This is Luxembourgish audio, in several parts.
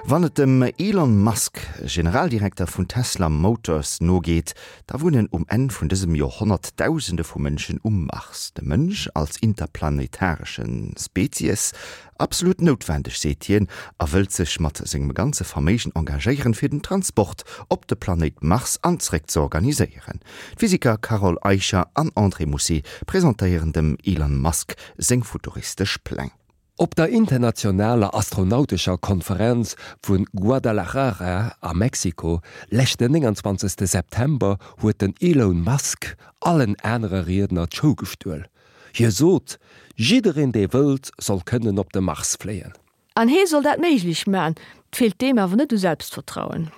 Wann et dem Elon Musk, Generaldirekter vun Tesla Motors, nogeet, da wunnen um Enn vun dësem Joerhonnert Dausende vu Mënschen um Mars. De Mënsch als interplanetaresche Spezies? Absolut noutwendeg, seet hien a wëllt sech mat sengem ganze Verméigen engagéieren, fir den Transport op de Planéit Mars an zréck ze organiséieren. D'Physiker Carole Eicher an André Mousset presentéieren dem Elon Musk seng futuristesch Pläng. Op der internationaler astronautescher Konferenz vu Guadalajara a Mexiko leschten 29 September huet den Elon Musk allen anere Riedner d'Show gestuel. Hie sot, jiddereen dee wëllt, soll kënnen op de Mars fléien. An hee soll dat méiglech man. 't feelt deem awer net u Selbstvertrauen.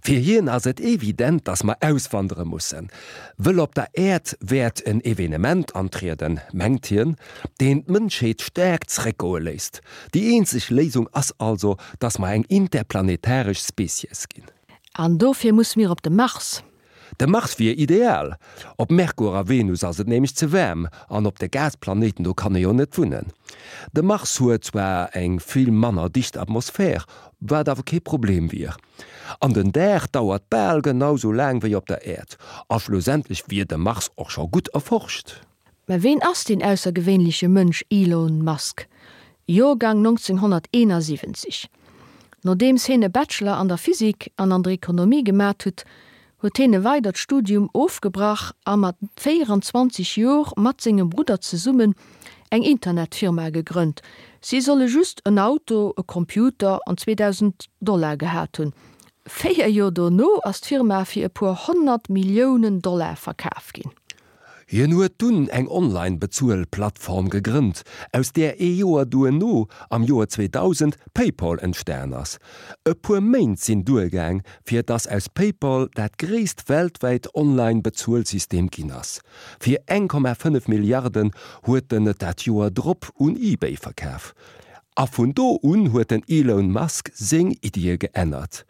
Fir hien ass et evident, datt mer auswandere mussen, wëll op der Äerd wäert en Evenement antrieden, mengt hien, deen d'Mënschheet staark zréckgoe léisst. Déi eenzeg Léisung ass also, datt mer eng interplanetaresch Spezies ginn. An dofir musse mir op de Mars. De Mars wier ideal. Op Merkur a Venus ass et nämlech ze waarm an op de Gasplanéiten do kann ee jo net wunnen. De Mars huet zwar eng vill manner dicht Atmosphär, wat awer kee Problem wier. An den Dag dauert bal genau sou laang wéi op der Äerd. A schlussendlech wier de Mars och scho gutt erforscht. Mä ween ass deen aussergewéinleche Mënsch Elon Musk? Joergang 1971. Nodeems heen e Bachelor an der Physik an an der Ekonomie gemat hutt, huet heen e weidert Studium ofgebrach a mat 24 Jor mat sengem Brudder zesummen eng Internetfirma gegrënnt. Si solle just en Auto, e Computer an 2.000 Dollar gehat hunn. 4 Jor dono ass d'Firma fir e puer 100 Milliounen Dollar verkaf ginn. Hien huet dunn eng Online-Bezuel-Plattform gegrënnt, aus där ee Joer duerno, am Joer 2000, PayPal entstan ass. E puer Méint sinn duergaang, fir dass aus PayPal dat gréisst weltwäit Online-Bezuelsystem ginn ass. Fir 1,5 Milliarden huet en et dat Joer drop un eBay verkaf. A vun do un huet den Elon Musk seng Iddie geännert.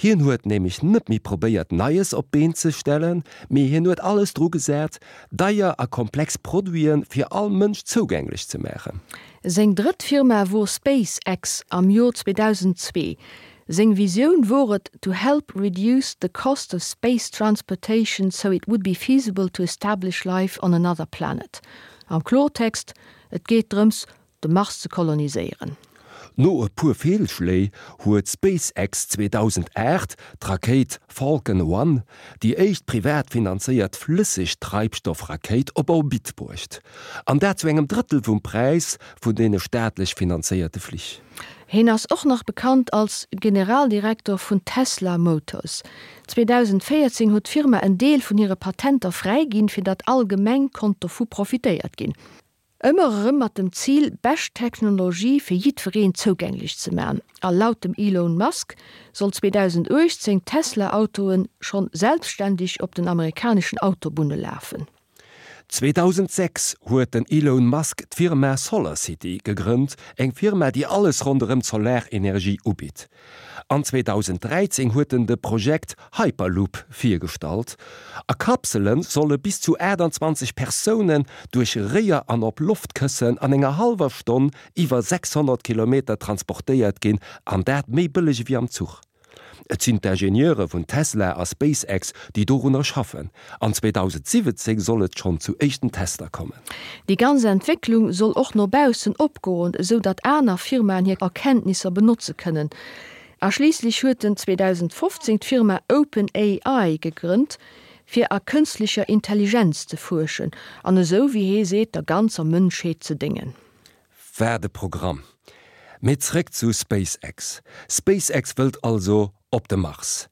Hien huet nämlech net méi probéiert Neies op d'Been ze stellen, mee hien huet alles dru gesat, deier a komplex Produite fir all Mënsch zougänglech ze maachen. Seng drëtt Firma wor SpaceX am Jor 2002. Seng Visioun wor et to help reduce the cost of space transportation so it would be feasible to establish life on another planet. Am Klortext, et geet drëms, de Mars ze koloniséieren. No e puer Feelschléi huet SpaceX 2008 d'Rakéit Falcon One, déi éischt privat finanzéiert Flëssegtreibstoffrakéit, op Orbit bruecht. An dat zu engem Drëttel vum Präis vun deene staatlech finanzéierte Flich. Hien ass och nach bekannt als Generaldirektor vun Tesla Motors. 2014 huet d'Firma en Deel vun hire Patenter fräiginn, fir datt allgemeng konnt dovu profitéiert ginn. Ëmmer erëm mat dem Zil, bescht Technologie fir jiddwereen zougänglech ze man. A laut dem Elon Musk soll 2018 Tesla-Autoen schonn selbstständeg op den amerikaneschen Autobunne lafen. 2006 huet den Elon Musk d'Firma SolarCity gegrënnt, eng Firma déi alles ronderëm d'Solarenergie ubitt. An 2013 huet en de Projekt Hyperloop virgestallt. A Kapsele solle bis zu 28 Persounen duerch Réier an op Loftkëssen an enger hallwer Stonn iwwer 600 Kilometer transportéiert ginn, an dat méi bëlleg ewéi am Zuch. Et sinn d'Ingenieure vun Tesla a SpaceX, déi dorunner schaffen. An 2017 soll et schonn zu éischten Tester kommen. Déi ganz Entwécklung soll och no baussen opgoen, esou datt aner Firmaen hir Erkenntnisser benotze kënnen. A schliisslech huet en 2015 d'Firma OpenAI gegrënnt, fir a kënstlecher Intelligenz ze fuerschen an esou, wéi hee seet, der ganzer Mënschheet ze déngen. Wat e Programm! Mee zréck zu SpaceX. SpaceX wëllt also op de Mars.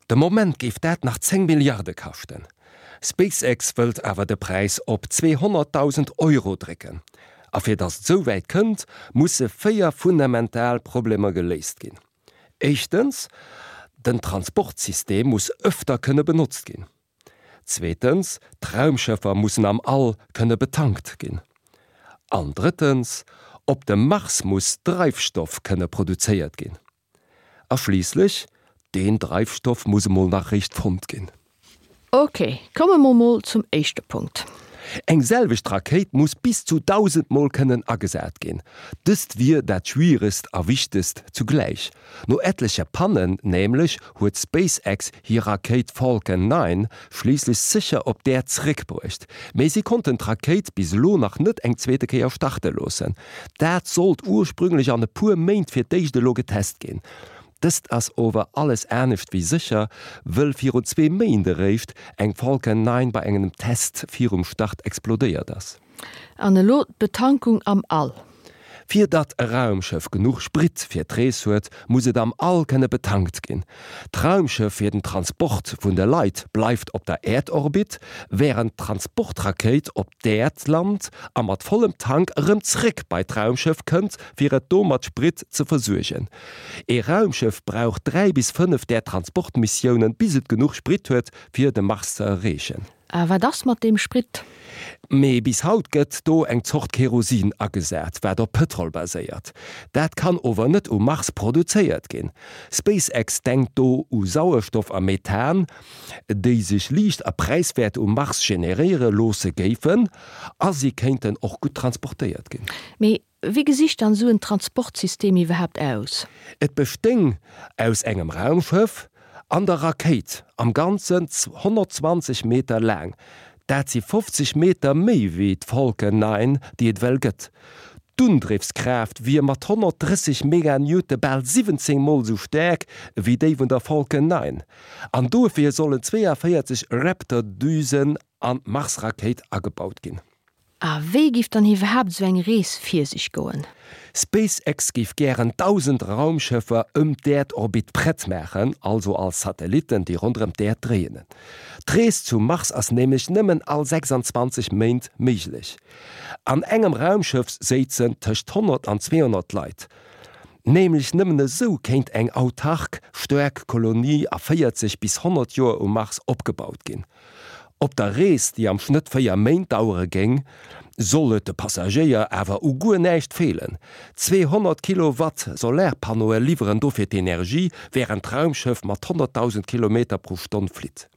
De Moment géif dat nach 10 Milliarde kaschten. SpaceX wëllt awer de Präis op 200.000 Euro drécken. A fir datt et esou wäit kënnt, musse 4 fundamental Problemer geléist ginn. Éischtens, den Transportsystem muss ëfter kënne benotzt ginn. Zweetens, d'Raumschëffer mussen am All kënne betankt ginn. An drëttens, op dem Mars muss Dreifstoff kënne produzéiert ginn. A schliisslech, deen Dreifstoff muss emol nach réischt fonnt ginn. Ok, komme mer mol zum éischte Punkt. Eng selwecht Rakéit muss bis zu 1.000 Mol kënnen agesat ginn. Dëst wier dat Schwieregst a Wichtegst zugläich. No etleche Pannen nämlech huet SpaceX hir Rakéit Falcon 9 schliisslech sécher op d'Äerd zeréckbruecht. Mee si konnten d'Rakéit bis elo nach net eng zweete Kéier starte loossen. Dat sollt ursprünglech an e puer Méint fir d'éischt elo getest ginn. Dëst ass ower alles anescht wéi sécher, wëll virun zwee Méint eréischt eng Falcon 9 bei engem Test virum Start explodéiert ass. An elo d'Betankung am All. Fir datt e Raumschëff genuch Sprit fir d'Rees huet, muss et am All kënne betankt ginn. D'Raumschëff fir den Transport vun de Leit bleift op der Äerdorbit, wärend d'Transportrakéit op d'Äerd lant a mat vollem Tank erëm zréck bei d'Raumschëff kënnt, fir et do mat Sprit ze versuergen. Ee Raumschëff brauch 3 bis 5 där Transportmissiounen, bis et genuch Sprit huet, fir de Mars ze erreechen. A wat ass mat deem Sprit? Mee bis haut gëtt do eng Zort Kerosin agesat, wat op Pëtrol baséiert. Dat kann ower net um Mars produzéiert ginn. SpaceX denkt do u Sauerstoff a Methan, déi sech liicht a präiswäert um Mars generéiere loosse géifen, a si kéinten och gutt transportéiert ginn. Mee Wéi gesicht dann esou en Transportsystem iwwerhaapt aus? Et bestéing aus engem Raumschëff an der Rakéit, am Ganzen 120 Meter laang. Dat si 50 Meter méi wéi d'Falcon 9, déi et ewell gëtt. D'Undriffskraaft wier mat 130 Meganewton bal 17 Mol esou staark wéi déi vun der Falcon 9. An dofir sollen 42 Raptor-Düsen an d'Mars-Rakéit agebaut ginn. A wéi giff dann iwwerhaapt esou eng Rees vir sech goen? SpaceX géif gären 1.000 Raumschëffer ëm d'Äerdorbit prett maachen, also als Satellitten, déi ronderëm d'Äerd dréinen. D'Rees zum Mars ass nämlech nëmmen all 26 Méint méiglech. An engem Raumschëff séizen tëscht 100 an 200 Leit. Nämlech nëmmen esou kéint eng autark, staark Kolonie a 40 bis 100 Joer um Mars opgebaut ginn. Op der Rees, déi am Schnëtt 4 Méint dauere géing, soll et de Passagéier awer u guer näischt feelen. 200 Kilowatt Solarpannoe liwweren dofir d'Energie, wärend d'Raumschëff mat 100.000 Kilometer pro Stonn flitt.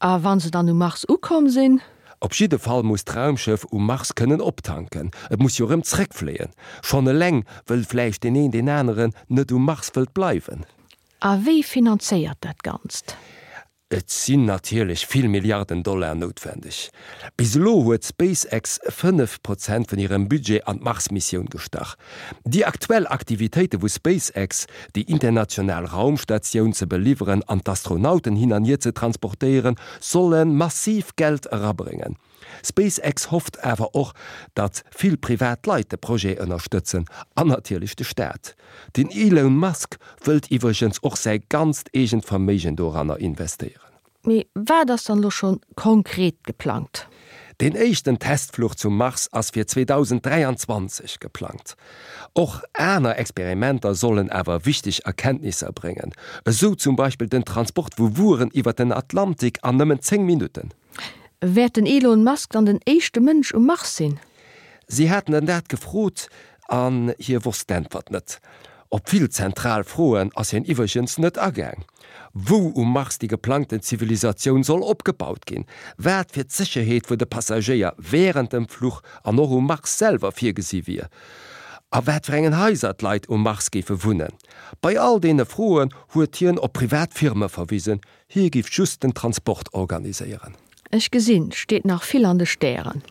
A wa se dann um Mars ukomm sinn? Op jidde Fall muss d'Raumschëff um Mars kënnen optanken. Et muss jo erëm zréckfléien. Schonn eleng, wëll vläicht deen een deen aneren net um Mars wëllt bleiwen. A wie finanzéiert dat Ganzt? Et sinn natierlech vill Milliarden Dollar noutwendeg. Bis elo huet SpaceX 5 Prozent vun hirem Budget an d'Mars-Missioun gestach. Déi aktuell Aktivitéite vu SpaceX, déi international Raumstatioun ze beliwweren an d'Astronauten hin an hier ze transportéieren, solle massiv Geld erabréngen. SpaceX hofft awer och, datt vill privat Leit de Projet ënnerstëtzen an natierlech de Staat. Den Elon Musk wëllt iwwregens och säi ganzt eegent Verméigen doranner investéieren. Mee wat ass dann elo schonn konkret geplangt? Deen éischten Testfluch zum Mars ass fir 2023 geplangt. Och aner Experimenter sollen awer wichteg Erkenntnisser bréngen, esou zum Beispill den Transport vu Wueren iwwer den Atlantik an nëmmen 10 Minutten. Wäert den Elon Musk dann den éischte Mënsch um Mars sinn? Si haten en dat gefrot an hie wosst d'Äntwert net. Op vill zentral Froen ass hien iwwregens net agaang. Wou um Mars déi geplangten Zivilisatioun soll opgebaut ginn, wat fir d'Sécherheet vun de Passagéier wärend dem Fluch an och um Mars selwer virgesi wier a wat fir engen Haiser d'Leit um Mars géife wunnen. Bei all deene Froen huet hien op privat Firme verwisen, Hie giff just den Transport organiséieren. Ech gesinn, steet nach vill an de Stären.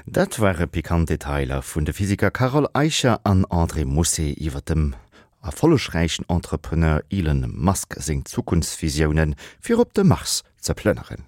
Dat ware pikant Detailer vun de Physiker Carole Eicher an André Mousset iwwer dem erfollegräichen Entrepreneur Elon Musk seng Zukunftsvisiounen, fir op de Mars ze plënneren.